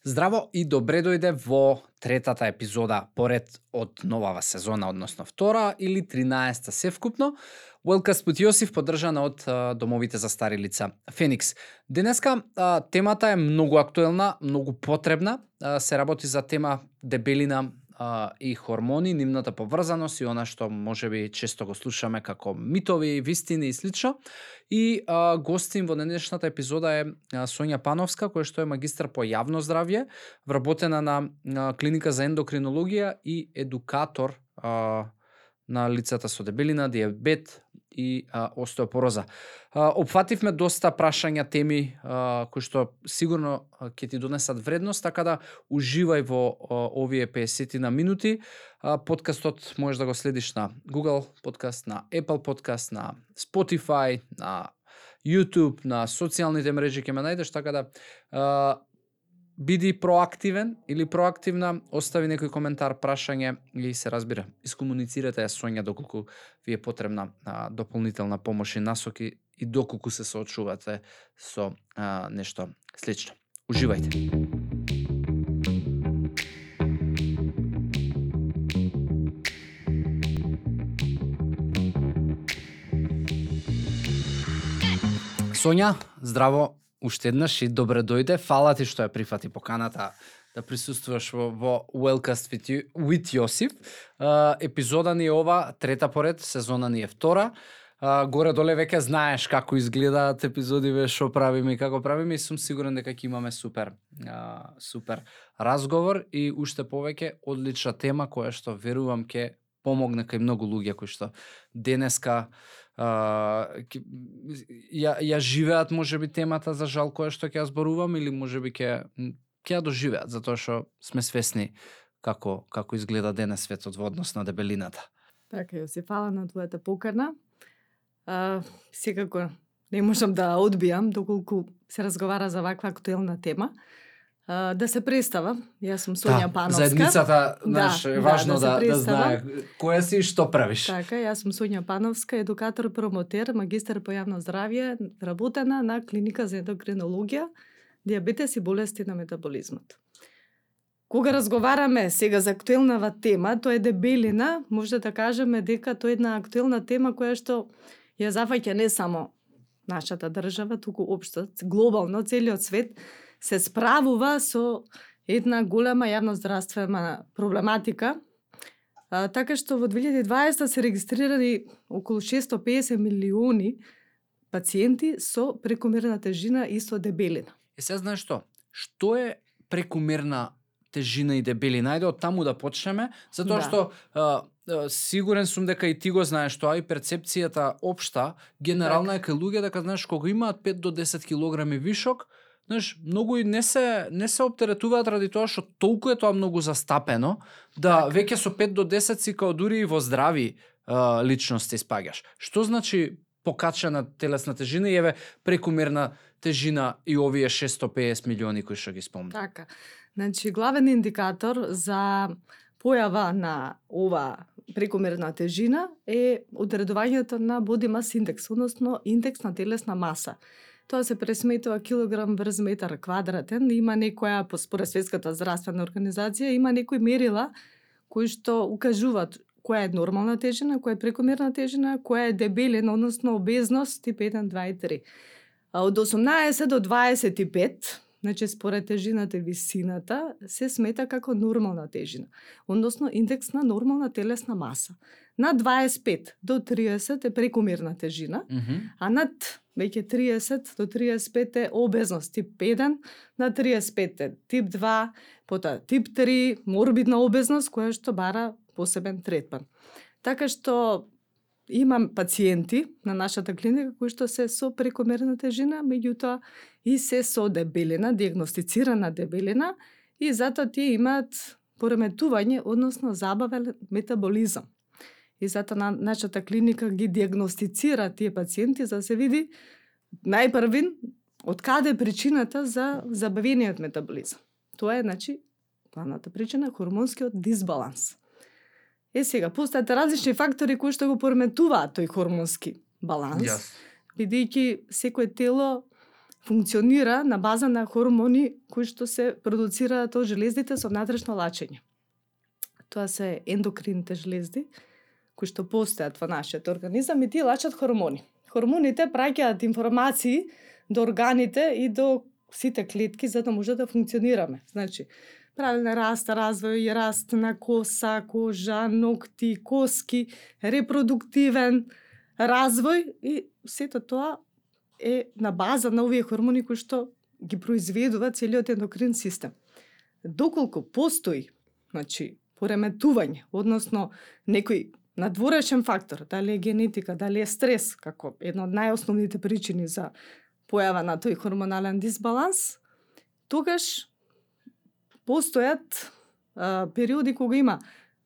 Здраво и добре дојде во третата епизода поред од новава сезона, односно втора или 13-та севкупно. Wellcast with Јосиф, поддржана од домовите за стари лица Феникс. Денеска темата е многу актуелна, многу потребна. Се работи за тема дебелина и хормони, нивната поврзаност и она што можеби често го слушаме како митови, вистини и слично. И гостин во денешната епизода е Сонја Пановска, која што е магистар по јавно здравје, вработена на клиника за ендокринологија и едукатор на лицата со дебелина, диабет и остеопороза. Опфативме доста прашања, теми кои што сигурно ќе ти донесат вредност, така да уживај во овие 50 на минути. Подкастот можеш да го следиш на Google Podcast, на Apple Podcast, на Spotify, на YouTube, на социјалните мрежи ќе ме најдеш, така да биди проактивен или проактивна, остави некој коментар, прашање и се разбира. Искомуницирате ја Сонја доколку ви е потребна дополнителна помош и насоки и доколку се соочувате со нешто слично. Уживајте. Сонја, здраво уште еднаш и добре дојде. Фала ти што ја прифати поканата да присуствуваш во Wellcast with Јосиф. Епизода ни е ова, трета поред, сезона ни е втора. Горе-доле веќе знаеш како изгледаат епизодиве, што правиме и како правиме и сум сигурен дека ќе имаме супер разговор и уште повеќе одлична тема која што верувам ќе помогне кај многу луѓе кои што денеска ја живеат можеби темата за жал која што ќе ја зборувам или можеби ќе ја доживеат затоа што сме свесни како изгледа денес светот во однос на дебелината. Така, Јосиф, фала на твојата покана. Секако не можам да одбијам доколку се разговара за ваква актуелна тема. Да се представам, јас сум Сонја Пановска. Заедницата, знаеш, е важно да знае која си и што правиш. Така, јас сум Сонја Пановска, едукатор, промотер, магистар по јавно здравје, вработена на клиника за ендокринологија, диабетес и болести на метаболизмот. Кога разговараме сега за актуелнава тема, тоа е дебелина, може да кажеме дека тоа е една актуелна тема која што ја зафаќа не само нашата држава, туку општо, глобално, целиот свет се справува со една голема јавноздравствена проблематика. Така што во 2020 се регистрирани околу 650 милиони пациенти со прекомерна тежина и со дебелина. Сега знаеш што? Што е прекомерна тежина и дебелина? Ајде од таму да почнеме, затоа што сигурен сум дека и ти го знаеш тоа и перцепцијата општа, генерална е кај луѓе дека знаеш кога имаат 5 до 10 килограми вишок, знаеш, многу и не се оптеретуваат ради тоа што толку е тоа многу застапено, да веќе со 5 до 10 си као дури и во здрави личности спаѓаш. Што значи покачена телесна тежина и еве прекомерна тежина и овие 650 милиони кои што ги спомна? Така. Значи, главен индикатор за појава на ова прекомерна тежина е одредувањето на body mass index, односно индекс на телесна маса. Тоа се пресметува килограм врз метар квадратен. Има некоја, според Светската здравствена организација, има некои мерила кои што укажуваат која е нормална тежина, која е прекомерна тежина, која е дебелина, односно обезност тип 1, 2 и 3. Од 18 до 25, значи според тежината и висината, се смета како нормална тежина, односно индекс на нормална телесна маса. Над 25 до 30 е прекомерна тежина, а над веќе 30 до 35 е обезност тип 1, на 35 е тип 2, потоа тип 3, морбидна обезност која што бара посебен третман. Така што имам пациенти на нашата клиника кои што се со прекомерна тежина, меѓутоа и се со дебелина, диагностицирана дебелина и затоа тие имаат пореметување, односно забавен метаболизам. И затоа на нашата клиника ги диагностицира тие пациенти за да се види најпрвин од каде е причината за забавениот метаболизам. Тоа е, значи, главната причина хормонскиот дисбаланс. Сега, постојат различни фактори кои што го пореметуваат тој хормонски баланс, бидејќи секое тело функционира на база на хормони кои што се продуцираат од желездите со внатрешно лачење. Тоа се ендокрините железди кои што постојат во нашиот организам и тие лачат хормони. Хормоните праќаат информации до органите и до сите клетки за да може да функционираме. Значи, правилен раст, развој, раст на коса, кожа, ногти, коски, репродуктивен развој и сето тоа е на база на овие хормони кои што ги произведува целиот ендокрин систем. Доколку постои, значи, пореметување, односно некој надворешен фактор, дали е генетика, дали е стрес, како една од најосновните причини за појава на тој хормонален дисбаланс, тогаш постојат периоди кога има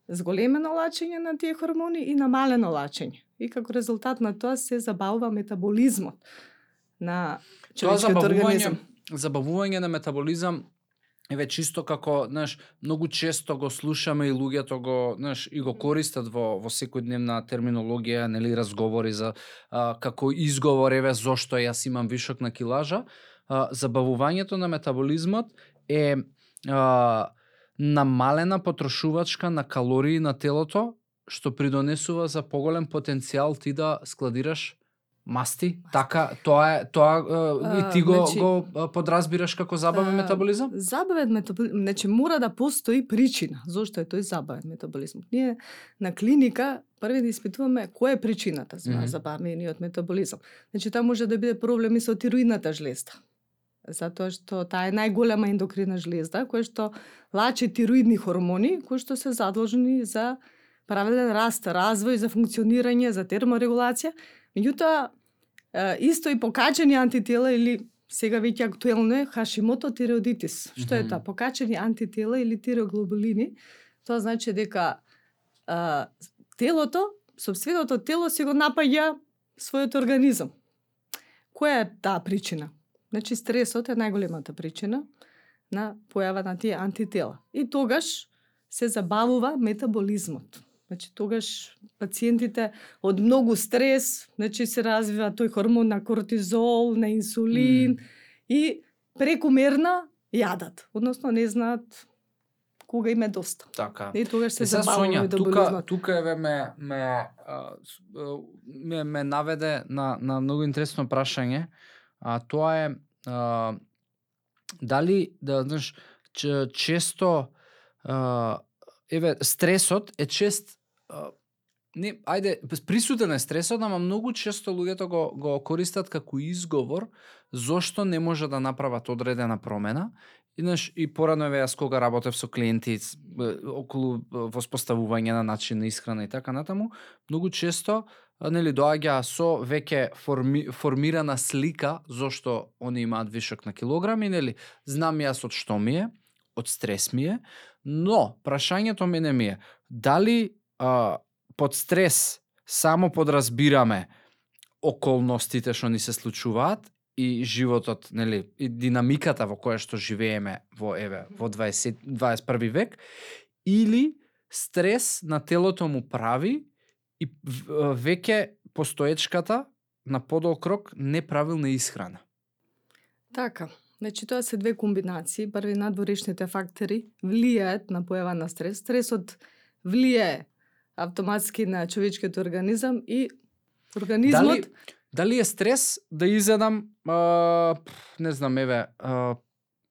зголемено лачење на тие хормони и намалено лачење. И како резултат на тоа се забавува метаболизмот на човечкиот организам. Забавување на метаболизам еве чисто како, знаеш, многу често го слушаме и луѓето го, знаеш, и го користат во секојдневна терминологија, нели, разговори за како изговор, еве зошто јас имам вишок на килажа. Забавувањето на метаболизмот е намалена потрошувачка на калории на телото, што придонесува за поголем потенцијал ти да складираш масти. Така, тоа и ти го подразбираш како забавен метаболизам? Забавен метаболизам, значи мора да постои причина зошто е тој забавен метаболизам. Ние на клиника први да испитуваме која е причината за забавениот метаболизам. Значи тоа може да биде проблеми со тироидната жлезда. Затоа што таа е најголема ендокрина жлезда која што лачи тироидни хормони кои што се задолжени за правилен раст, развој, за функционирање, за терморегулација. Меѓутоа, исто и покачени антитела или сега веќе актуелно е Хашимото тиреоидитис. Што е тоа? Покачени антитела или тиреоглобулини. Тоа значи дека телото, сопственото тело си го напаѓа својот организам. Која е таа причина? Значи стресот е најголемата причина на појава на тие антитела. И тогаш се забавува метаболизмот. Значи тогаш пациентите од многу стрес, значи се развива тој хормон на кортизол, на инсулин и прекумерна јадат, односно не знаат кога им е доста. Така. И тогаш се забавува метаболизмот. Тука еве ме наведе на многу интересно прашање, а тоа е дали да знаеш често еве стресот е чест не, ајде, присутен е стресот, ама многу често луѓето го користат како изговор зошто не може да направат одредена промена. И порадно еве јас кога работев со клиенти околу воспоставување на начин на исхрана и така натаму, многу често нели доаѓа со веќе формирана слика зошто они имаат вишок на килограми, нели знам јас од што ми е, од стрес ми е, но прашањето мене ми е дали под стрес само подразбираме околностите што ни се случуваат и животот, нели, и динамиката во која што живееме во 21 век, или стрес на телото му прави и веќе постоечката на подолг рок неправилна исхрана. Така. Значи тоа се две комбинации. Први, надворешните фактори влијаат на појава на стрес. Стресот влијае автоматски на човечкиот организам и организмот... Дали е стрес да изедам, не знам, еве,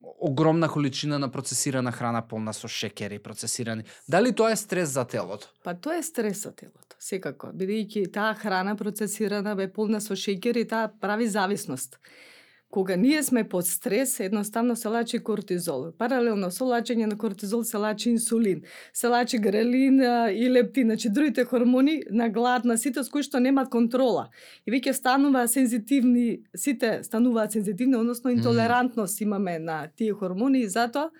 огромна количина на процесирана храна полна со шекери, процесирани. Дали тоа е стрес за телото? Па тоа е стрес за телото, секако. Бидејќи таа храна процесирана бе полна со шекери, таа прави зависност. Кога ние сме под стрес, едноставно се лачи кортизол. Паралелно со лачење на кортизол се лачи инсулин, се лачи грелин и лептин, значи другите хормони на глад, на ситост кои што немаат контрола. И веќе стануваат сензитивни, сите стануваат сензитивни, односно интолерантност имаме на тие хормони и затоа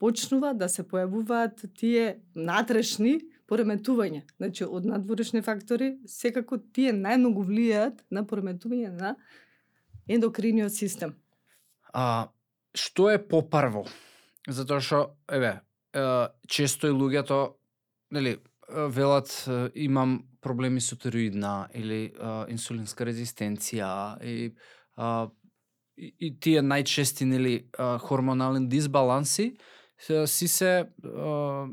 почнува да се појавуваат тие натрешни пореметувања. Значи од надворешни фактори секако тие најмногу влијаат на пореметување на ендокриниот систем. Што е попрво? Затоа што, еве, често и луѓето, нели, велат имам проблеми со тироидна или инсулинска резистенција и и тие најчести нели хормонални дисбаланси си се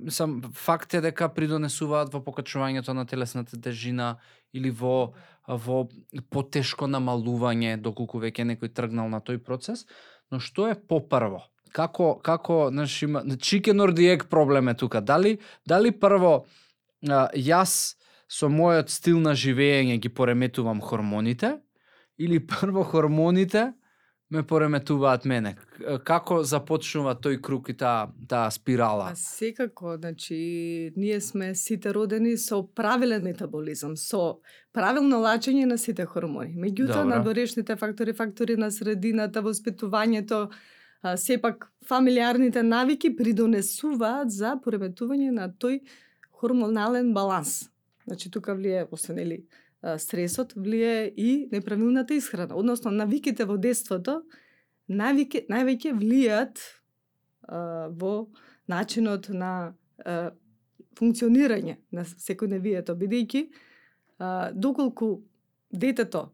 сам факт е дека придонесуваат во покачувањето на телесната тежина или во потешко намалување доколку веќе некој тргнал на тој процес, но што е попрво? Како знаеш, има chicken or the egg проблем е тука. Дали прво јас со мојот стил на живење ги пореметувам хормоните или прво хормоните ме пореметуваат мене? Како започнува тој круг и таа спирала? Секако, значи, ние сме сите родени со правилен метаболизам, со правилно лачење на сите хормони. Меѓутоа, надворешните фактори на средината, воспитувањето, сепак фамилиарните навики придонесуваат за пореметување на тој хормонален баланс. Значи, тука влие, освен стресот, влие и неправилната исхрана. Односно, навиките во детството највеќе влијат во начинот на функционирање на секојдневието, бидејќи доколку детето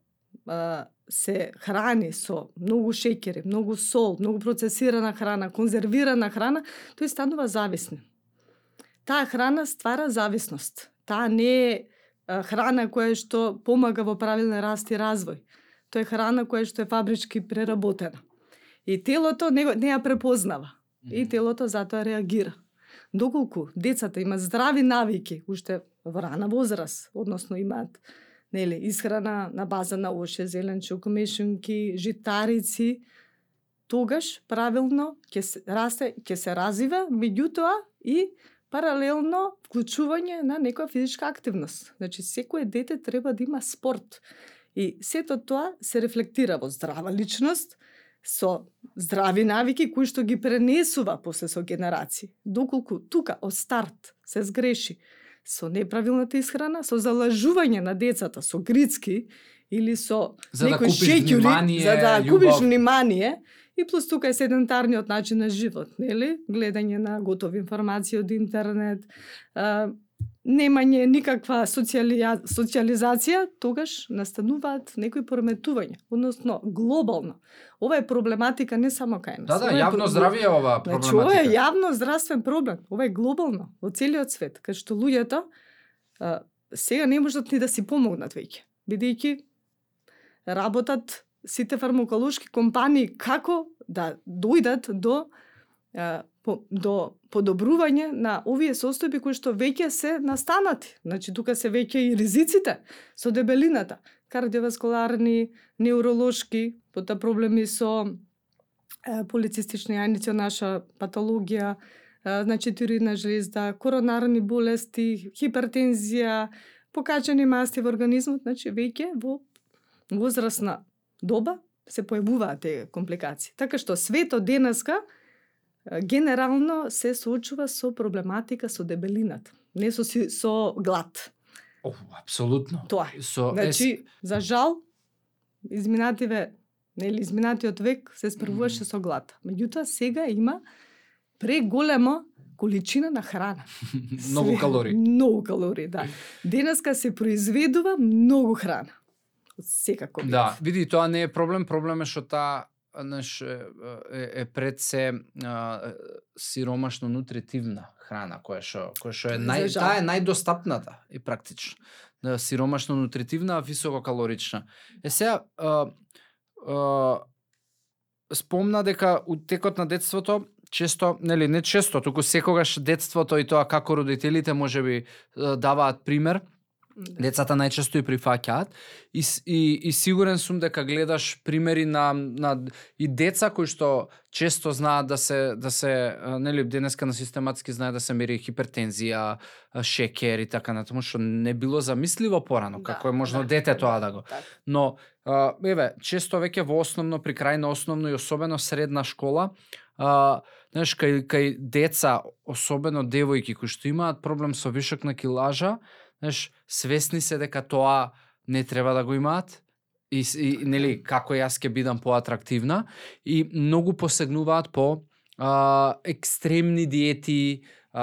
се храни со многу шеќери, многу сол, многу процесирана храна, конзервирана храна, тој станува зависен. Таа храна ствара зависност. Таа не е храна која што помага во правилен раст и развој. Тоа е храна која што е фабрички преработена. И телото не ја препознава. И телото затоа реагира. Доколку децата имаат здрави навики, уште во рана возраст, односно имаат исхрана на база на оше, зеленчук, мешунки, житарици, тогаш правилно ќе се расте, ќе се развива, меѓутоа и паралелно вклучување на некоја физичка активност. Значи, секое дете треба да има спорт. И сето тоа се рефлектира во здрава личност, со здрави навики кои што ги пренесува после со генерации. Доколку тука од старт се сгреши со неправилната исхрана, со залажување на децата со грицки или со некои шеќери, за да купиш внимание, и плюс тука е седентарниот начин на живот, нели? Гледање на готови информации од интернет, немање никаква социализација, тогаш настануваат некои пореметувања, односно глобално. Ова е проблематика не само кај нас. Да, јавно здравје е ова проблематика. Значи, ова е јавно здравствен проблем. Ова е глобално, во целиот свет, кај што луѓето сега не можат ни да си помогнат веќе, бидејќи работат сите фармаколошки компании како да дојдат до подобрување на овие состојби кои што веќе се настанати. Значи, тука се веќе и ризиците со дебелината, кардиоваскуларни, неуролошки, потоа проблеми со полицистични јајници, наша патологија, значи тироидна жлезда, коронарни болести, хипертензија, покачени масти во организмот, значи веќе во возрастна доба се појавуваат тие компликации. Така што светот денеска генерално се соочува со проблематика со дебелината, не со глад. Апсолутно. Тоа. Значи, за жал, изминатиот век се справуваше со глад. Меѓутоа, сега има преголема количина на храна. Многу калории. Многу калории, да. Денеска се произведува многу храна. Секако. Да, види, тоа не е проблем, проблем е што таа е пред се сиромашно нутритивна храна која што е таа е најдостапната и практично. Сиромашно нутритивна, високо калорична. Сега спомна дека у текот на детството често, нели не често, туку секогаш детството и тоа како родителите можеби даваат пример. Децата најчесто и прифаќаат и сигурен сум дека гледаш примери на и деца кои што често знаат да се нели денеска на систематски знае да се мери хипертензија, шеќер и така натаму, што не било замисливо порано, како е можно дете тоа да го. Но еве, често веќе во основно, при крај на основно и особено средна школа, знаеш, кај деца, особено девојки кои што имаат проблем со вишок на килажа, знаеш, свесни се дека тоа не треба да го имаат и нели како јас ќе бидам поатрактивна и многу посегнуваат по екстремни диети,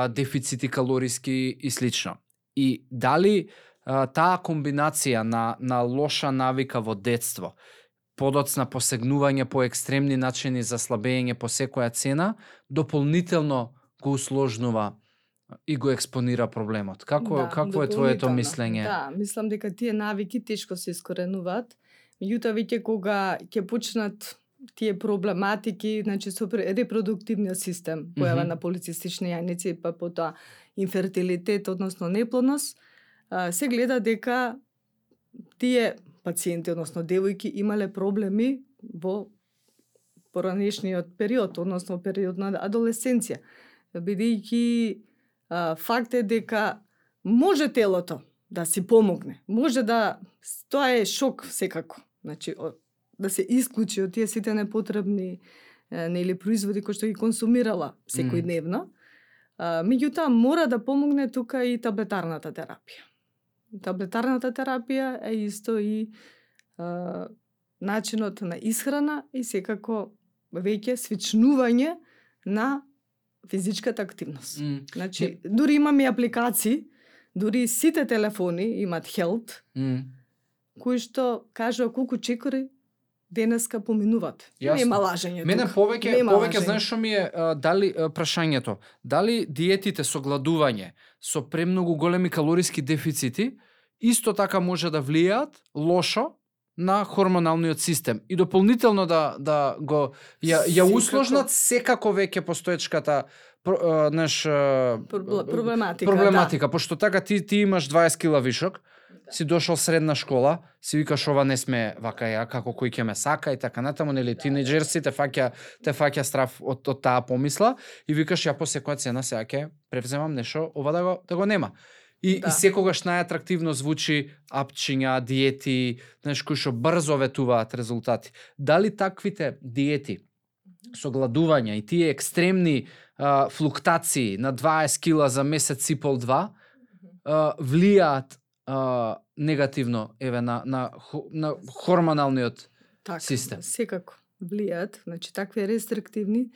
дефицити калориски и слично. И дали таа комбинација на лоша навика во детство подоцна посегнување по екстремни начини за слабење по секоја цена, дополнително го усложнува и го експонира проблемот. Какво е твоето дополнително. мислење? Да, мислам дека тие навики тешко се искоренуваат. Меѓутоа веќе кога ќе почнат тие проблематики, значи со репродуктивниот систем, појава на полицистични јајници, па потоа инфертилитет, односно неплодност, се гледа дека тие пациенти, односно девојки, имале проблеми во поранешниот период, односно период на адолесценција. Бидејќи факт е дека може телото да си помогне, може да, тоа е шок секако, значи да се исклучи од тие сите непотребни производи кои што ги консумирала секојдневно. Меѓутоа мора да помогне тука и таблетарната терапија. Таблетарната терапија е исто и начинот на исхрана и секако веќе свичнување на физичката активност. Значи, дури имаме апликации, дури сите телефони имаат Health, кои што кажува колку чекори денеска поминуваат. Нема лажење. Мене повеќе знаеш што ми е дали прашањето, дали диетите со гладување, со премногу големи калориски дефицити исто така може да влијаат лошо на хормоналниот систем и дополнително да го ја усложнат секако веќе постоечката проблематика, пошто така ти имаш 20 кила вишок, си дошол средна школа, си викаш ова не сме вака ја, како кој ќе ме сака и така натаму, нели тинеџерси те фаќа страв од таа помисла и викаш ја по секоја цена сега ќе превземам нешто ова да го нема. И секогаш најатрактивно звучи апчиња, диети, кои што брзо ветуваат резултати. Дали таквите диети со гладување и тие екстремни флуктации на 20 кила за месец и пол 2 влијаат негативно на хормоналниот систем? Секако влијаат. Значи, такви рестриктивни,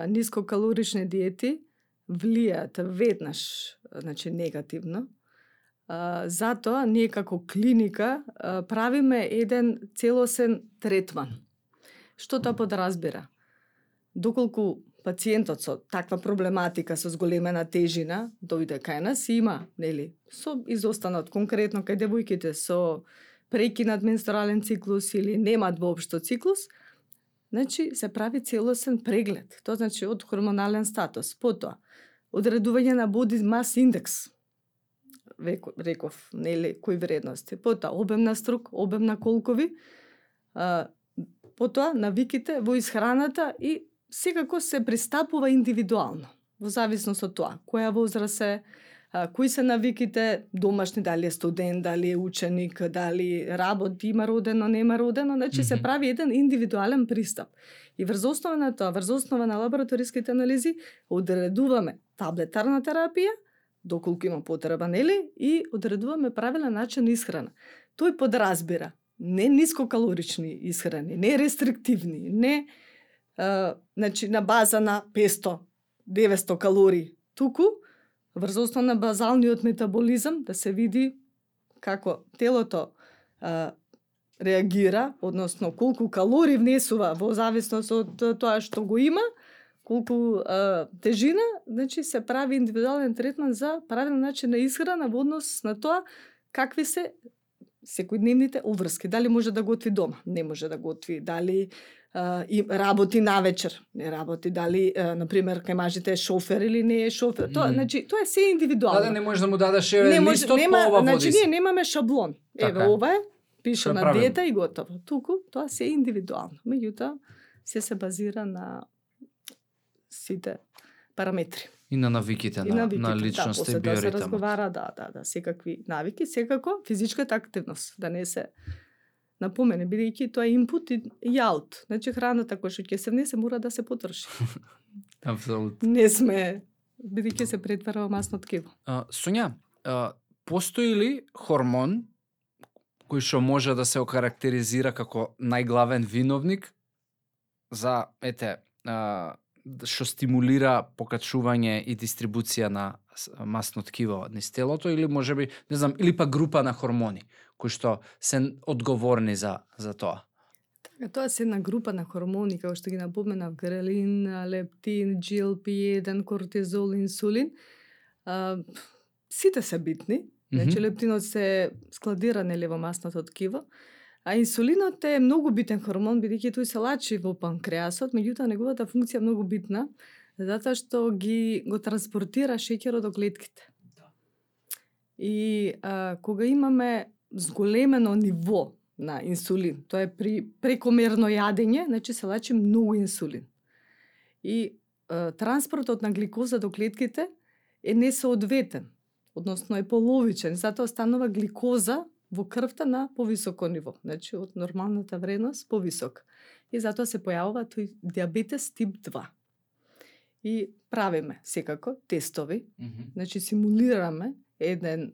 нискокалорични диети влијаат веднаш, значи негативно. Затоа ние како клиника правиме еден целосен третман. Што тоа подразбира? Доколку пациентот со таква проблематика со зголемена тежина дојде кај нас, има, нели, со изостанат конкретно кај девојките со прекинат менструален циклус или немаат воопшто циклус, значи се прави целосен преглед. Тоа значи од хормонален статус, потоа одредување на body mass index, реков, нели, кои вредности, потоа обем на струк, обем на колкови, потоа навиките во исхраната и секако се пристапува индивидуално, во зависност од тоа, која возраст е, кои се навиките домашни, дали е студент, дали е ученик, дали работи, има родено, нема родено, значи се прави еден индивидуален пристап. И врз основа на тоа, врз основа на лабораториските анализи, одредуваме таблетарна терапија, доколку има потреба, нели, и одредуваме правилен начин на исхрана. Тој подразбира не нискокалорични исхрани, не рестриктивни, не значи на база на 500-900 калории, туку врз основа на базалниот метаболизам да се види како телото реагира, односно колку калории внесува во зависност од тоа што го има, колку тежина, значи се прави индивидуален третман за правилен начин на исхрана во однос на тоа какви се секојдневните уврски. Дали може да готви дома, не може да готви, дали и работи навечер, не работи, дали например кај мажите е шофер или не е шофер. Тоа значи тоа е се индивидуално. Да, не може да му дадеш листот по ова води. Значи ние немаме шаблон. Еве ова е, пише на диета и готово. Туку тоа се индивидуално. Меѓутоа се базира на сите параметри. И на навиките, на личност и биоритмот. Да, се разговара, да, секакви навики, секако физичката активност, да не се напомене, бидејќи тоа е инпут и аут. Значи храната која што ќе се внесе мора да се потроши. Апсолутно. Не сме, бидејќи се претвара во масно ткиво. Сонја, постои ли хормон кој што може да се окарактеризира како најглавен виновник за што стимулира покачување и дистрибуција на масно ткиво низ телото, или можеби, не знам, или па група на хормони кои што се одговорни за тоа? Тоа се една група на хормони, како што ги напоменав, грелин, лептин, GLP-1, кортизол, инсулин. Сите се битни. Значи, лептинот се складира во масното ткиво, а инсулинот е многу битен хормон, бидејќи тој се лачи во панкреасот, меѓутоа неговата функција е многу битна, затоа што го транспортира шеќерот до клетките. И кога имаме зголемено ниво на инсулин, тоа е при прекомерно јадење, значи се лачи многу инсулин. И транспортот на гликоза до клетките е несоодветен, односно е половичен, затоа станува гликоза во крвта на повисоко ниво, значи од нормалната вредност повисок. И затоа се појавува тој диабетес тип 2. И правиме секако тестови, значи симулираме еден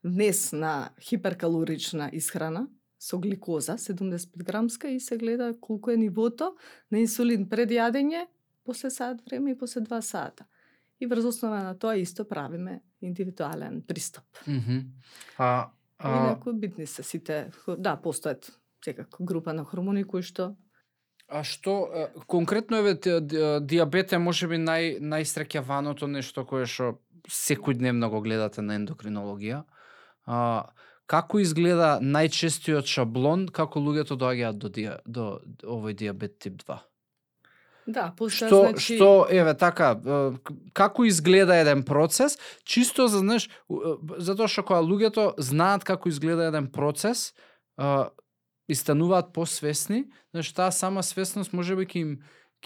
внес на хиперкалорична исхрана со гликоза 75 грамска и се гледа колку е нивото на инсулин пред јадење, после саат време и после 2 сата. И врз основа на тоа исто правиме индивидуален пристап. Инаку битни се сите, да, постојат секако група на хормони кои што... А што, конкретно диабет е можеби најсреќаваното нешто кое што секојдневно го гледате на ендокринологија. Како изгледа најчестиот шаблон како луѓето доаѓаат до овој диабет тип 2? Да, што еве така, како изгледа еден процес, чисто за затоа што кога луѓето знаат како изгледа еден процес, и стануваат посвесни, таа сама свесност можеби ќе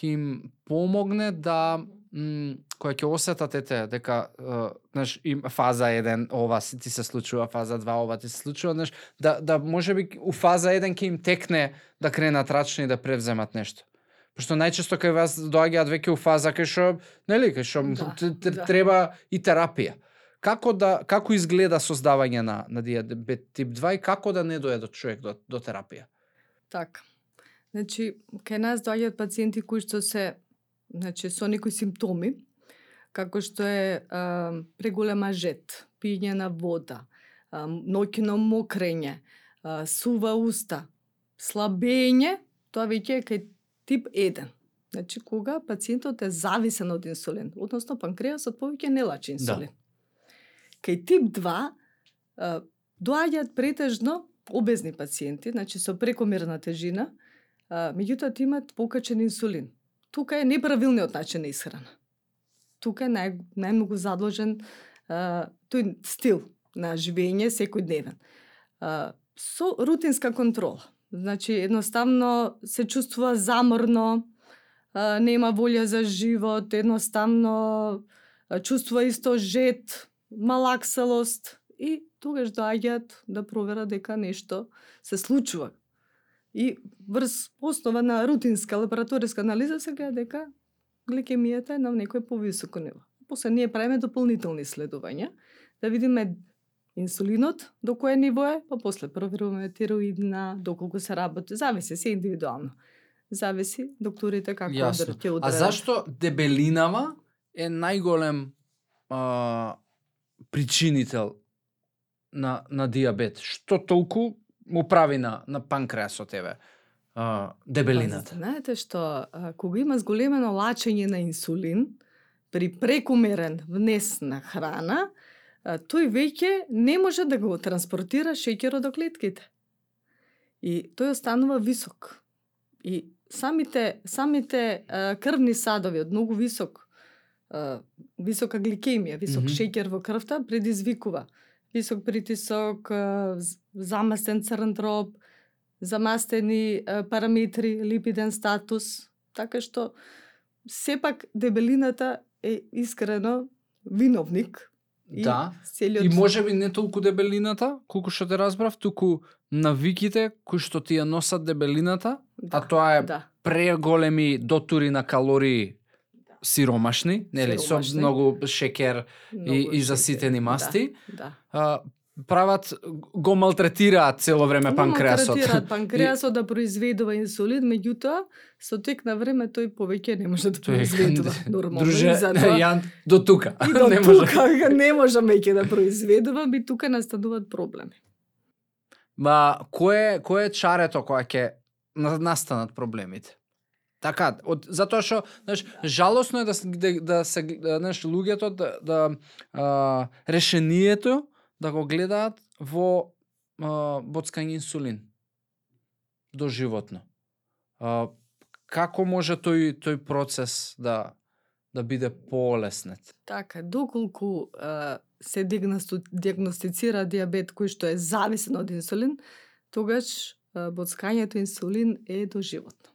им помогне да кога ќе осетат дека им фаза 1 ова ти се случува, фаза 2 ова ти се случува, да можеби у фаза 1 ќе им текне да кренат рачни и да превземат нешто. Пошто најчесто кај вас доаѓаат веќе у фаза кај што треба и терапија. Како изгледа создавање на диабет тип 2 и како да не дојде човек до терапија? Така. Значи, кај нас доаѓаат пациенти кои што се, значи, со некои симптоми, како што е преголема жет, пиење на вода, ноќно мокрење, сува уста, слабење, тоа веќе е кај тип 1. Значи, кога пациентот е зависен од инсулин, односно панкреасот повеќе не лачи инсулин. Да. Кај тип 2 доаѓаат претежно обезни пациенти, значи со прекомерна тежина, меѓутоа имаат покачен инсулин. Тука е неправилниот начин на исхрана. Тука е најмногу задложен тој стил на живење секојдневен. Со рутинска контрола. Значи, едноставно се чувствува заморно, нема волја за живот, едноставно чувствува исто жет, малаксалост и тогаш доаѓаат да проверат дека нешто се случува. И врз основа на рутинска лабораториска анализа се гледа дека гликемијата е на некој повисоко ниво. После ние правиме дополнителни исследувања да видиме инсулинот до кое ниво е, па после проверуваме тироидна, доколку се работи, зависи се индивидуално. Зависи докторите како ќе одредат. А зашто дебелинава е најголем причинител на диабет? Што толку му прави на панкреасот дебелината? Знаете што, кога има зголемено лачење на инсулин при прекумерен внес на храна, тој веќе не може да го транспортира шеќерот до клетките. И тој останува висок. И самите крвни садови од многу висока гликемија, висок шеќер во крвта предизвикува висок притисок, замастен црн дроб, замастени параметри, липиден статус, така што сепак дебелината е искрено виновник. Да, и можеби не толку дебелината, колку што те разбрав, туку навиките кои што ти ја носат дебелината, а тоа е преголеми дотури на калории сиромашни, нели, со многу шеќер и заситени масти. Прават, го малтретираат цело време панкреасот. Малтретираат панкреасот да произведува инсулин, меѓутоа со тек на време тој повеќе не може да произведува нормално. Друже, Јан, до тука. И до тука не може веќе да произведува, би тука настануваат проблеми. Ма, кој е чарето која ќе настанат проблемите. Така, затоа што, знаеш, жалосно е да се, знаеш, луѓето решението да го гледаат во боцкање инсулин доживотно. Како може тој процес да биде полеснет? Така, доколку се диагностицира диабет кој што е зависен од инсулин, тогаш боцкањето инсулин е доживотно.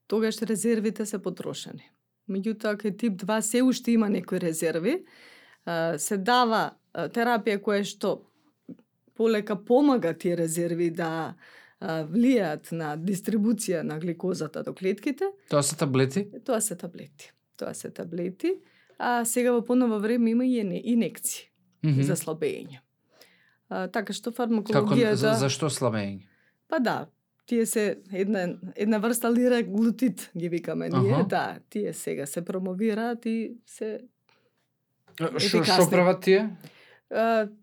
Тогаш резервите се потрошени. Меѓутоа, кај тип 2 се уште има некои резерви, се дава терапија која што полека помага тие резерви да влијаат на дистрибуција на гликозата до клетките. Тоа се таблети? Тоа се таблети. А сега во поново време има и инекции за слабење. Така што фармакологијата... Зашто слабење? Па да, тие се една врста лираглутид ги викаме ние, да, тие сега се промовираат и се Што прават тие?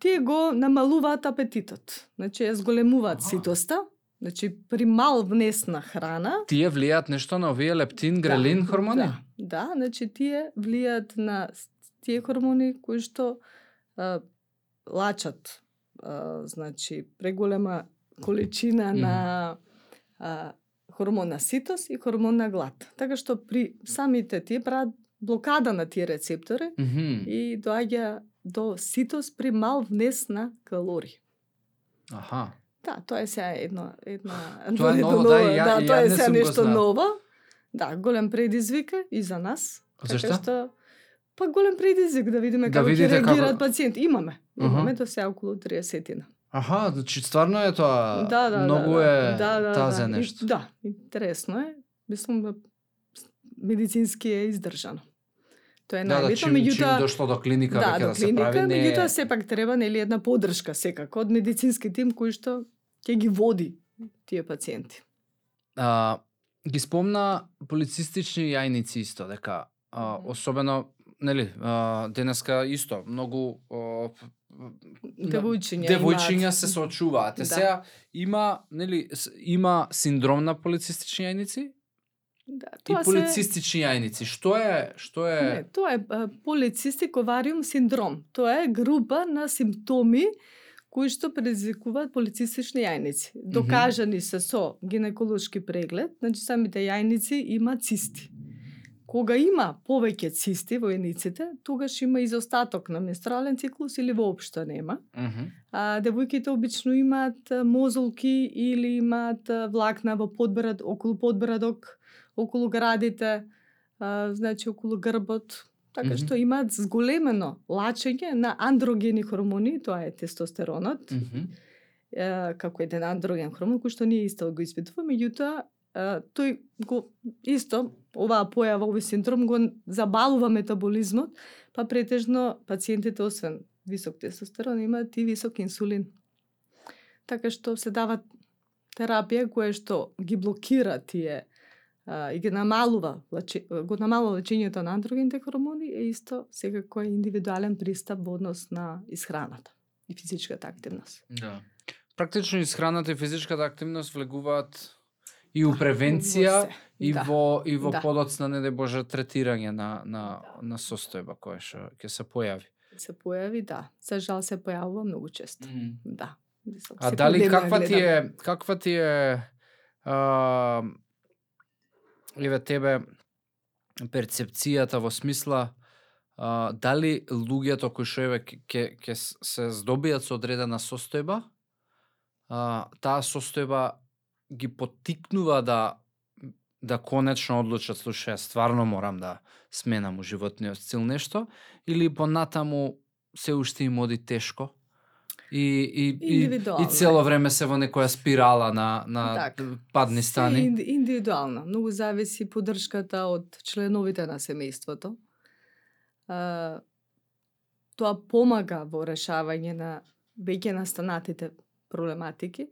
Тие го намалуваат апетитот. Значи, зголемуваат ситоста. Значи, при мал внес на храна... Тие влијаат нешто на овие лептин, грелин хормони? Да, значи тие влијаат на тие хормони кои што лачат значи преголема количина на хормон на ситост и хормон на глад. Така што при самите тие прават блокада на тие рецептори и доаѓа до ситост при мал внес на калории. Да, тоа е сега една тоа е ново, да, тоа е сега нешто ново. Да, голем предизвик и за нас. Зашто? Што па голем предизвик да видиме како ќе реагираат пациенти. Имаме до сега околу 30-тина. Значи стварно е тоа. Многу е тазе нешто. Да, интересно е. Мислам медицински е издржано. Тоа е најбитно, меѓутоа дошло до клиника веќе да се прави, меѓутоа сепак треба нели една поддршка секако од медицински тим кој што ќе ги води тие пациенти. Ги спомна полицистични јајници исто дека особено нели денеска исто многу девојчиња се соочуваат. Сега има синдром на полицистични јајници? Да, и полицистични јајници. Што е? Не, тоа е полицистик овариум синдром. Тоа е група на симптоми кои што предизвикуваат полицистични јајници. Докажани се со гинеколошки преглед, значи самите јајници има цисти. Кога има повеќе цисти во јајниците, тогаш има изостаток на менструален циклус или воопшто нема. Девојките обично имаат мозолки или имаат влакна во подбрад, околу подбрадок, околу градите, значи околу грбот, така што имаат зголемено лачење на андрогени хормони, тоа е тестостеронот, како еден андроген хормон кој што ние исто го испитуваме, меѓутоа тој го исто оваа појава, овој синдром го забалува метаболизмот, па претежно пациентите освен висок тестостерон имаат и висок инсулин. Така што се дава терапија која што ги блокира тие и ги намалува лечењето на андрогените хормони, е исто секако е индивидуален пристап во однос на исхраната и физичката активност. Да. Практично исхраната и физичката активност влегуваат и у превенција и во подоцна, не дај Боже, третирање на состојба која што ќе се појави. Се појави, да. За жал се појавува многу често. Да. Дали каква ти е еве тебе перцепцијата во смисла дали луѓето кои што еве ќе се здобијат со одредена состојба, таа состојба ги поттикнува да конечно одлучат, слушај, стварно морам да сменам у животниот стил нешто, или понатаму се уште им оди тешко и цело време се во некоја спирала на падни стани. Индивидуално, многу зависи поддршката од членовите на семејството. Тоа помага во решавање на веќе настанатите проблематики.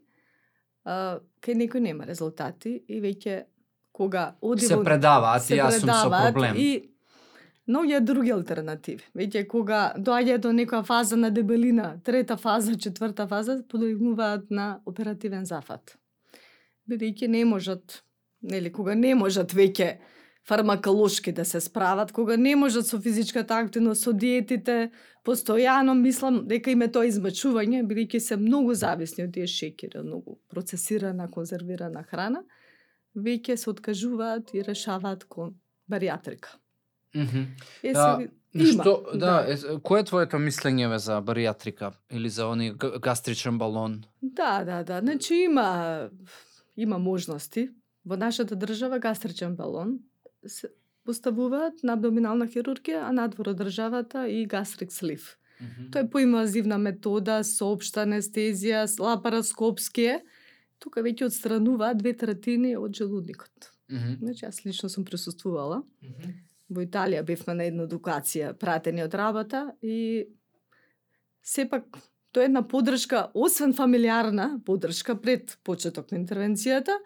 Кај некој нема резултати и веќе кога оди се предаваат и јас сум со проблем. И многу други алтернативи. Веќе кога доаѓа до некоја фаза на дебелина, трета фаза, четврта фаза, подигнуваат на оперативен зафат. бидејќи не можат, кога не можат веќе фармаколошки да се справат, кога не можат со физичката активност, со диетите, постојано мислам дека им е тоа измачување, бидејќи се многу зависни од тие шеќери, многу процесирана, конзервирана храна, веќе се откажуваат и решаваат кон баријатрика. Кој е твоето мислење за баријатрика или за они гастричен балон? Да. Значи има можности. Во нашата држава гастричен балон се поставуваат на абдоминална хирургија, а надвор од државата и гастрик слив. Тоа е поинвазивна метода, со општа анестезија, лапароскопски е. Тука веќе отстрануваат 2/3 од желудникот. Значи, јас лично сум присуствувала. Во Италија бевме на една едукација, пратени од работа и сепак тоа е една поддршка, освен фамилиарна поддршка пред почеток на интервенцијата,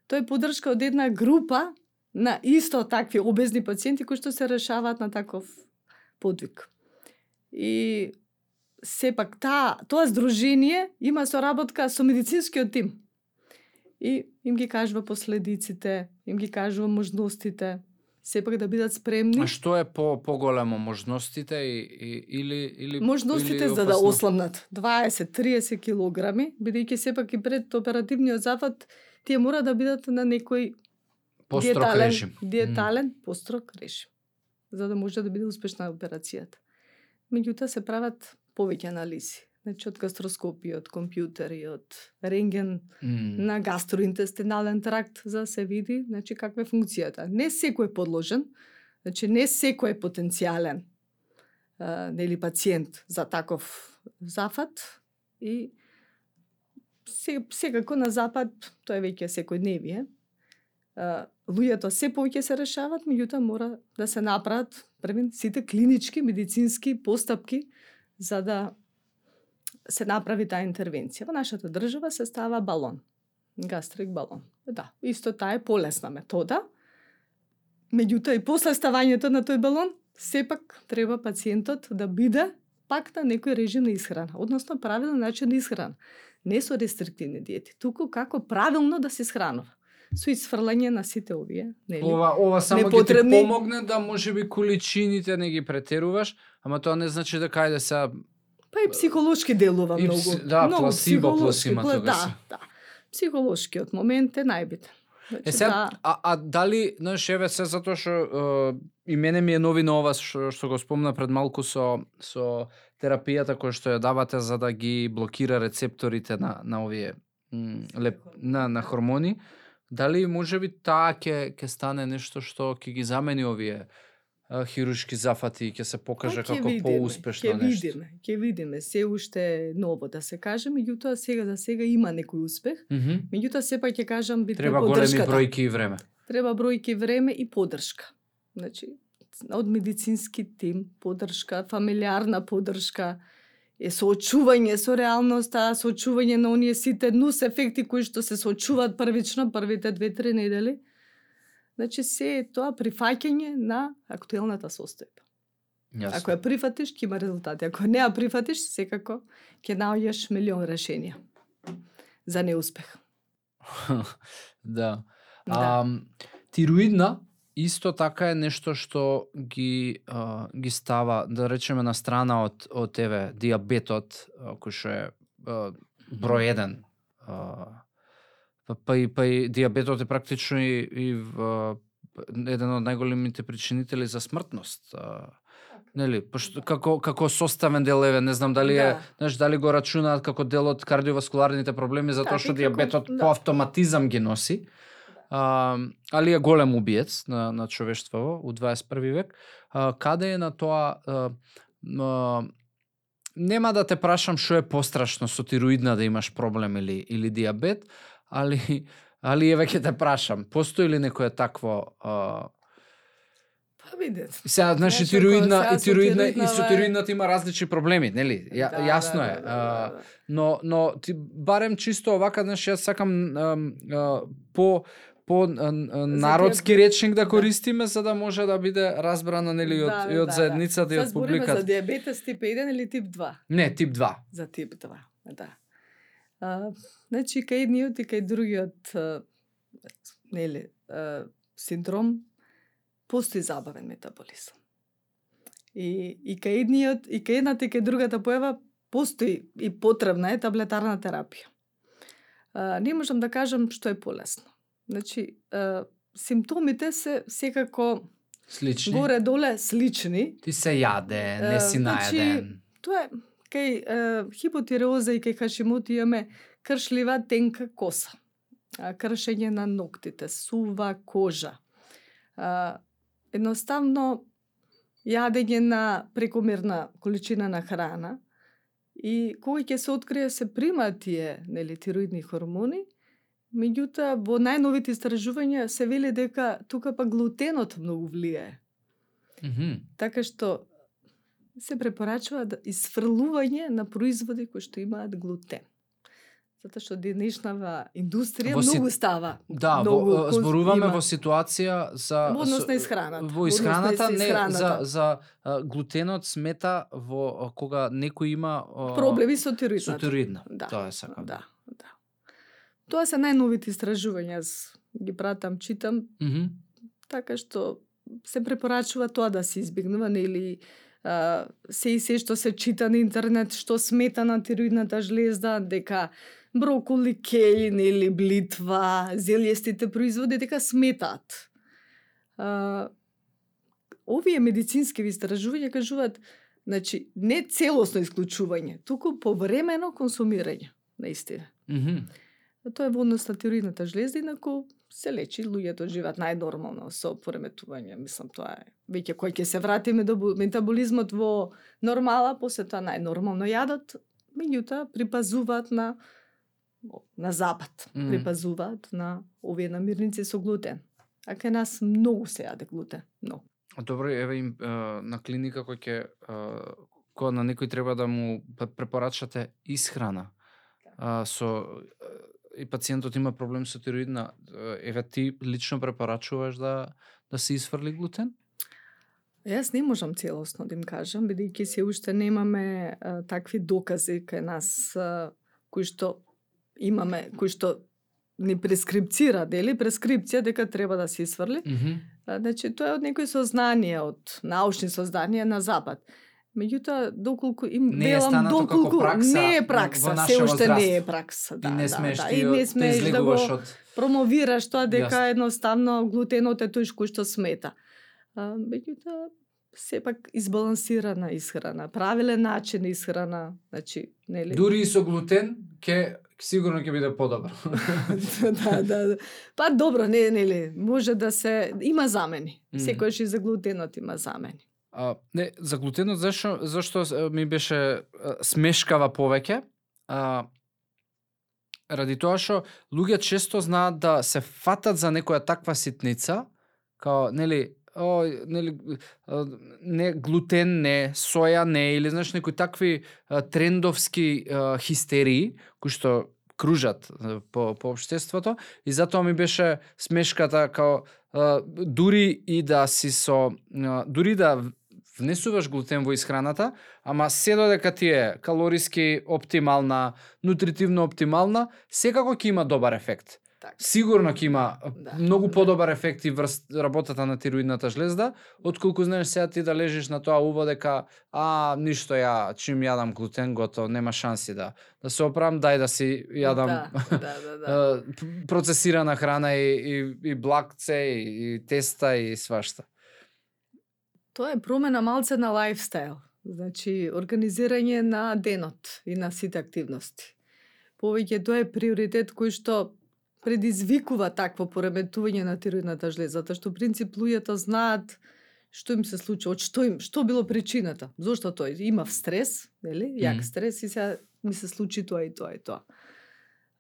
тоа е поддршка од една група на исто такви обезни пациенти кои што се решаваат на таков подвиг. И сепак тоа здружение има соработка со медицинскиот тим. И им ги кажува последиците, им ги кажува можностите, сепак да бидат спремни. А што е поголемо можностите или можностите за да осламнат 20-30 килограми, бидејќи сепак и пред оперативниот зафат тие мора да бидат на некој диетален построг режим, за да може да биде успешна операцијата. Меѓутоа се прават повеќе анализи. Значи од гастроскопија, од компјутери, од рентген на гастроинтестинален тракт, за да се види каква е функцијата. Не секој е подложен, значи не секој е потенцијален пациент за таков зафат и секако на запад тоа е веќе секојдневие. Луѓето се повеќе се решават, меѓутоа мора да се направат сите клинички, медицински постапки за да се направи таа интервенција. Во нашата држава се става балон, гастрик балон. Да, исто таа е полесна метода. Меѓутоа и после ставањето на тој балон, сепак треба пациентот да биде пак на некој режим на исхрана, односно правилен начин на исхрана. Не со рестриктивни диети, туку како правилно да се исхранува. Со исфрлање на сите овие, Ова само ќе ти помогне да можеби количините не ги претеруваш, ама тоа не значи дека ајде се па и психолошки делува многу. Да, пласибо плюс има тога. Да. Психолошкиот момент е најбитен. Дали, еве се затоа што и мене ми е новина ова што го спомна пред малку со терапијата која што ја давате за да ги блокира рецепторите на овие на хормони. Дали можеби таа ќе стане нешто што ќе ги замени овие хируршки зафати и ќе се покаже како поуспешно нешто? Ќе видиме, се уште ново да се каже, меѓутоа сега има некој успех. Меѓутоа сепак ќе кажам битна треба поддршката. Големи бројки и време. Треба бројки, време и поддршка. Значи од медицински тим, поддршка, фамилиарна поддршка, соочување со реалноста, соочување на оние сите нус ефекти кои што се соочуваат првично првите 2-3 недели. Значи се е тоа прифаќање на актуелната состојба. Јасно. Ако ја прифатиш, ќе има резултати. Ако не ја прифатиш, секако ќе наоѓаш милион решенија за неуспех. Да. Тироидна исто така е нешто што ги става, да речеме, на страна од диабетот, кој што е број 1. Па и диабетот е практично и еден од најголемите причинители за смртност. Нели, пошто како составен дел, не знам дали е, дали го рачунаат како дел од кардиоваскуларните проблеми, затоа што диабетот по автоматизам ги носи. Али е голем убиец на човештво у 21 век. Каде е на тоа, нема да те прашам што е пострашно со тироидна да имаш проблем или диабет, али еве ќе те прашам, постои ли некое такво видете. Сега, значи, тироидна и со тироидната има различни проблеми, нели? Јасно е. Но барем чисто овака, значи, јас сакам по народски речник да користиме, за да може да биде разбрана, нели, и од заедницата и од публиката. Збориме за диабетес тип 1 или тип 2? Не, тип 2. За тип 2, да. Значи, кај едниот и кај другиот нели, синдром, постои забавен метаболизам. И кај едниот, и кај едната и кај другата појава постои и потребна е таблетарна терапија. Не можам да кажам што е полесно. Значи, симптомите се секако Слични. горе-доле слични. Ти се јаде, не си наеден. Тоа е кај хипотиреоза и кај Хашимоти имаме кршлива тенка коса, кршење на ноктите, сува кожа. Едноставно јадење на прекомерна количина на храна и кога ќе се открие се примаат тие, нели, тироидни хормони, меѓутоа во најновите истражувања се вели дека тука па глутенот многу влијае. Така што се препорачува да изфрлување на производи кои што имаат глутен. Затоа што денешнава индустрија многу става. Да, зборуваме во ситуација за во однос на исхраната. Во исхраната, за глутенот смета во кога некој има проблеми со тироидната. Со тироидна. Да. Тоа е сакам. Да. Тоа се најновите истражувања, ги пратам, читам. Така што се препорачува тоа да се избегнува, нели, се што се чита на интернет што смета на тироидната жлезда, дека броколи, кејн или блитва, зелјестите производи дека сметаат. Овие медицински истражувања кажуваат, значи, не целосно исклучување, туку повремено консумирање, наистина. Тоа е во однос на тироидната жлезда, инаку се лечи, луѓето живеат најнормално со пореметување. Мислам, тоа е веќе кој ќе се вратиме до метаболизмот во нормала, после тоа најнормално јадат, меѓутоа припазуваат на запад, припазуваат на овие намирници со глутен. А кај нас многу се јаде глутен, многу. Добро, еве им на клиника кога на некој треба да му препорачате исхрана. Со и пациентот има проблем со тироидна, еве ти лично препорачуваш да се изфрли глутен? Јас не можам целосно да им кажам, бидејќи се уште немаме такви докази кај нас кои што имаме, кои што ни прескрипцира, дели прескрипција дека треба да се изфрли. Значи тоа е од некои сознанија, од научни сознанија на запад. Меѓутоа, доколку им велам, доколку не е пракса, се уште не е пракса. И не смеш да го промовираш тоа дека едноставно глутенот е тој кој што смета. Меѓутоа, сепак избалансирана исхрана, правилен начин исхрана, значи, нели? Дури и со глутен сигурно ќе биде подобро. Да. Па добро, нели, може да се има замени. Секојаш и за глутенот има замени. Не, за глутенот зашто ми беше смешкава повеќе? Ради тоа што луѓе често знаат да се фатат за некоја таква ситница, као, нели, не глутен не, соја не, или знаеш некои такви трендовски хистерии кои што кружат по општеството, и затоа ми беше смешката као дури да внесуваш глутен во исхраната, ама се додека ти е калориски оптимална, нутритивно оптимална, секако ќе има добар ефект. Так. Сигурно ќе има многу подобар ефект и врз работата на тироидната жлезда, отколку знаеш сега ти да лежиш на тоа уво дека ништо чим јадам глутен готово, нема шанси да се оправам, дај да си јадам процесирана храна и блакце и теста и свашта. Тоа е промена малце на лајфстайл, значи организирање на денот и на сите активности. Повеќе тоа е приоритет кој што предизвикува такво пореметување на тироидната жлеза, затоа што принцип луѓето знаат што им се случи, од што било причината, зошто тој имав стрес, нели, јак стрес и сега ми се случи тоа и тоа и тоа.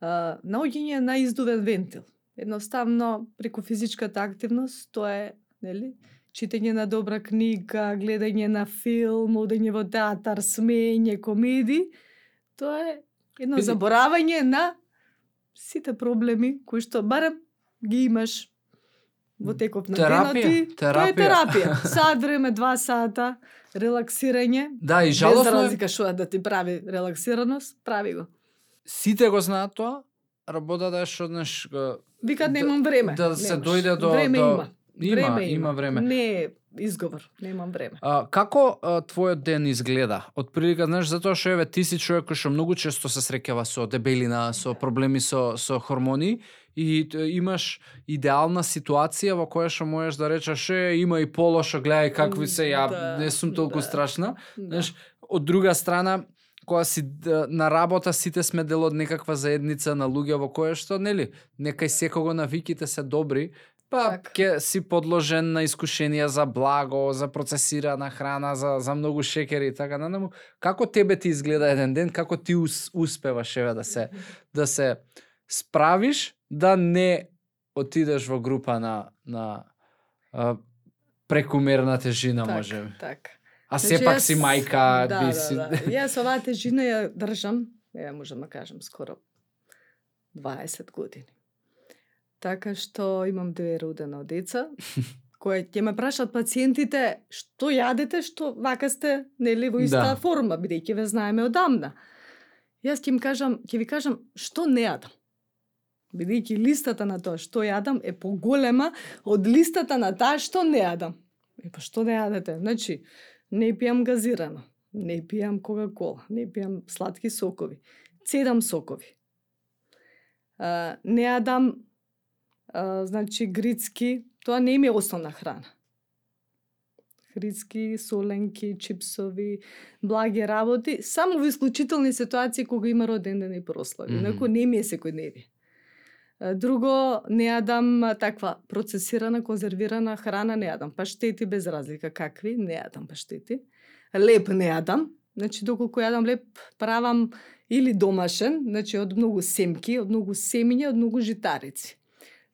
Наоѓање на издувен вентил. Едноставно преку физичката активност, тоа е, нели, читање на добра книга, гледање на филм, одење во театар, смеење, комеди, тоа е едно заборавање на сите проблеми кои што барем ги имаш во текот на денот и тоа е терапија. Сат време, 2 сата, релаксирање. Да, и жалосно без разлика што да ти прави релаксираност, прави го. Сите го знаат тоа, работата е што Викаат немам време. Да се Немаш. дојде до Време до... има. Има време. Не е изговор, немам време. Како твојот ден изгледа? Од прилика, знаеш, затоа што еве ти си човек кој што многу често се среќава со дебелина, со проблеми со хормони и имаш идеална ситуација во која што можеш да речеш има и полошо, гледај какви се, ја не сум толку страшна. Знаеш, од друга страна, кога си на работа, сите сме дел од некаква заедница на луѓе во која што, нели, некај секого навиките се добри, па ќе си подложен на искушенија за благо, за процесирана храна, за многу шекери и така натаму. Како тебе ти изгледа еден ден, како ти успеваш еве да се справиш да не отидеш во група на прекумерна тежина, може. Така. А сепак си мајка, да. Јас оваа тежина ја држам, можам да кажам, скоро 20 години. Така што имам 2 родена деца, кои ќе ме прашат пациентите што јадете, што вака сте, нели, во иста форма, бидејќи ве знаеме одамна. Јас ќе ви кажам што не јадам. Бидејќи листата на тоа што јадам е поголема од листата на таа што не јадам. Па што не јадете? Значи, не пијам газирано, не пијам кока-кола, не пијам сладки сокови, 7 сокови. Не јадам значи грицки, тоа не ми е основна храна. Грицки, соленки, чипсови, благи работи, само во исклучителни ситуации кога има роден ден и прослави. Инаку не ми е секојдневие. Друго, не јадам таква процесирана, конзервирана храна, не јадам паштети без разлика какви, не јадам паштети. Леп не јадам, значи доколку јадам леп правам или домашен, значи од многу семки, од многу семиња, од многу житарици.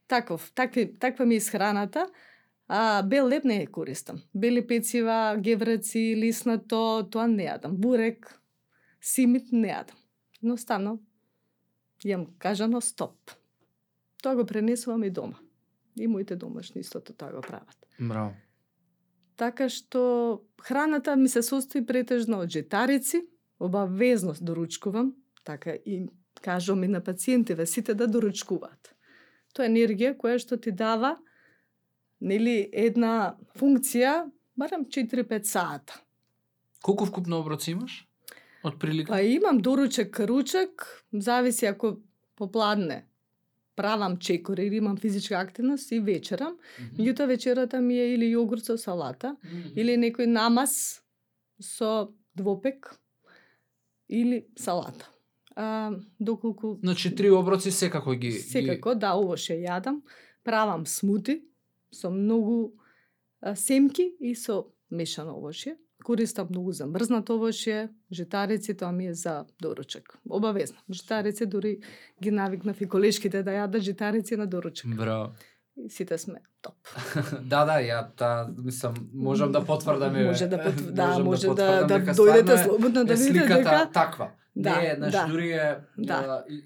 Таква ми е исхраната, а бел леп не ја користам. Бели пецива, гевреци, лиснато, тоа не јадам. Бурек, симит не јадам. Едноставно, јам кажано стоп. Тоа го пренесувам и дома. И моите домашни истото тоа го прават. Браво. Така што храната ми се состои претежно од житарици, обавезно доручкувам, така и кажувам и на пациентиве сите да доручкуваат. Тоа е енергија која што ти дава, нели, една функција барем 4-5 сата. Колку вкупно оброци имаш? Од прилика? Па имам доручек, ручек, зависи ако попладне правам чекор или имам физичка активност и вечерам. Меѓутоа вечерата ми е или јогурт со салата, или некој намаз со двопек, или салата. Доколку... Значи 3 оброци секако ги... Секако, да, овоше јадам. Правам смути со многу семки и со мешано овошје. Користам многу замрзнато овошје, житарици, тоа ми е за доручек. Обавезно. Житарици дури ги навикнав и колешките да јадат житарици на доручек. Браво. И сите сме топ. Мислам, можам да потврдам. Може да дека дојдете слободно да видите сликата дека таква. Да, не, значи дури е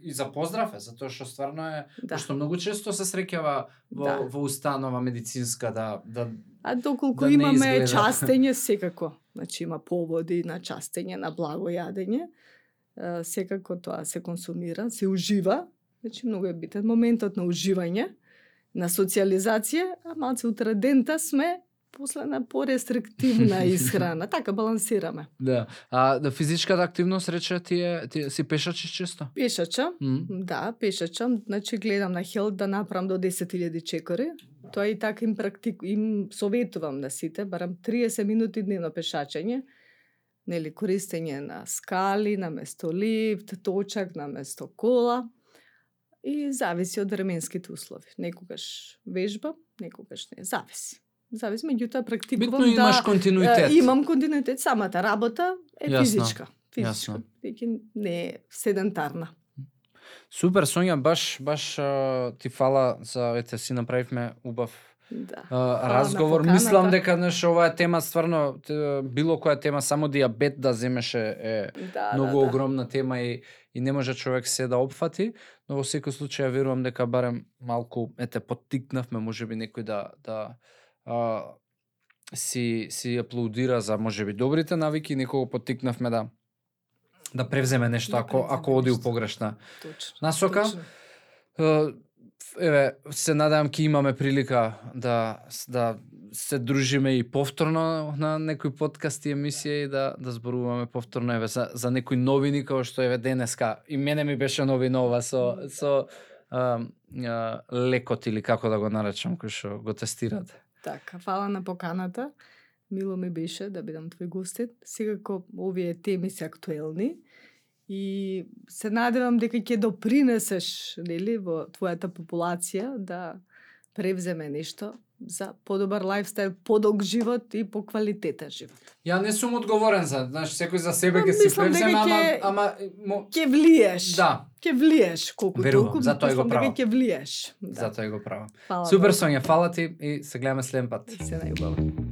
и за поздрав е, затоа што стварно е, што многу често се среќава во установа медицинска да А доколку да имаме частење секако, значи има поводи на частење, на благо јадење, секако тоа се консумира, се ужива, значи многу е битен моментот на уживање, на социализација, а малце утредента сме после на порестриктивна исхрана, така балансираме. Да. А физичката активност рече ти си пешачиш често? Пешачам, да, пешачам, значи гледам на Хелт да направам до 10.000 чекори. Тоа и така им советувам на сите, барам 30 минути дневно пешачење, нели користење на скали, на место лифт, точак на место кола и зависи од временските услови. Некогаш вежбам, некогаш не, зависи, меѓутоа практикувам. Битно имаш континуитет. Имам континуитет, самата работа е физичка. Јасно. Веќе не е седентарна. Супер, Сонја, баш ти фала за си направивме убав разговор. Мислам дека оваа тема стварно било која тема, само диабет да земеше е многу огромна тема и не може човек се да опфати, но во секој случај верувам дека барем малку поттикнавме, можеби некој да си аплаудира за можеби добрите навики, некого поттикнавме да превземе нешто ако оди у погрешна насока. Еве, се надевам ќе имаме прилика да се дружиме и повторно на некои подкасти емисија и да зборуваме повторно еве за некои новини како што еве денеска и мене ми беше новина ова со лекот или како да го наречам кој што го тестирате. Така, фала на поканата. Мило ми беше да бидам твој гостин. Секако овие теми се актуелни и се надевам дека ќе допринесеш, нели, во твојата популација да превземе нешто за подобар лајфстайл, подолг живот и поквалитетен живот. Ја не сум одговорен за, знаеш, секој за себе ќе си превземе, ама ќе влиеш. Да. Ќе влиеш колку толку, затоа го правам. ќе влиеш. Да. Затоа го правам. Фала, Супер, Сонја, фала ти и се гледаме следен пат. Се најубаво.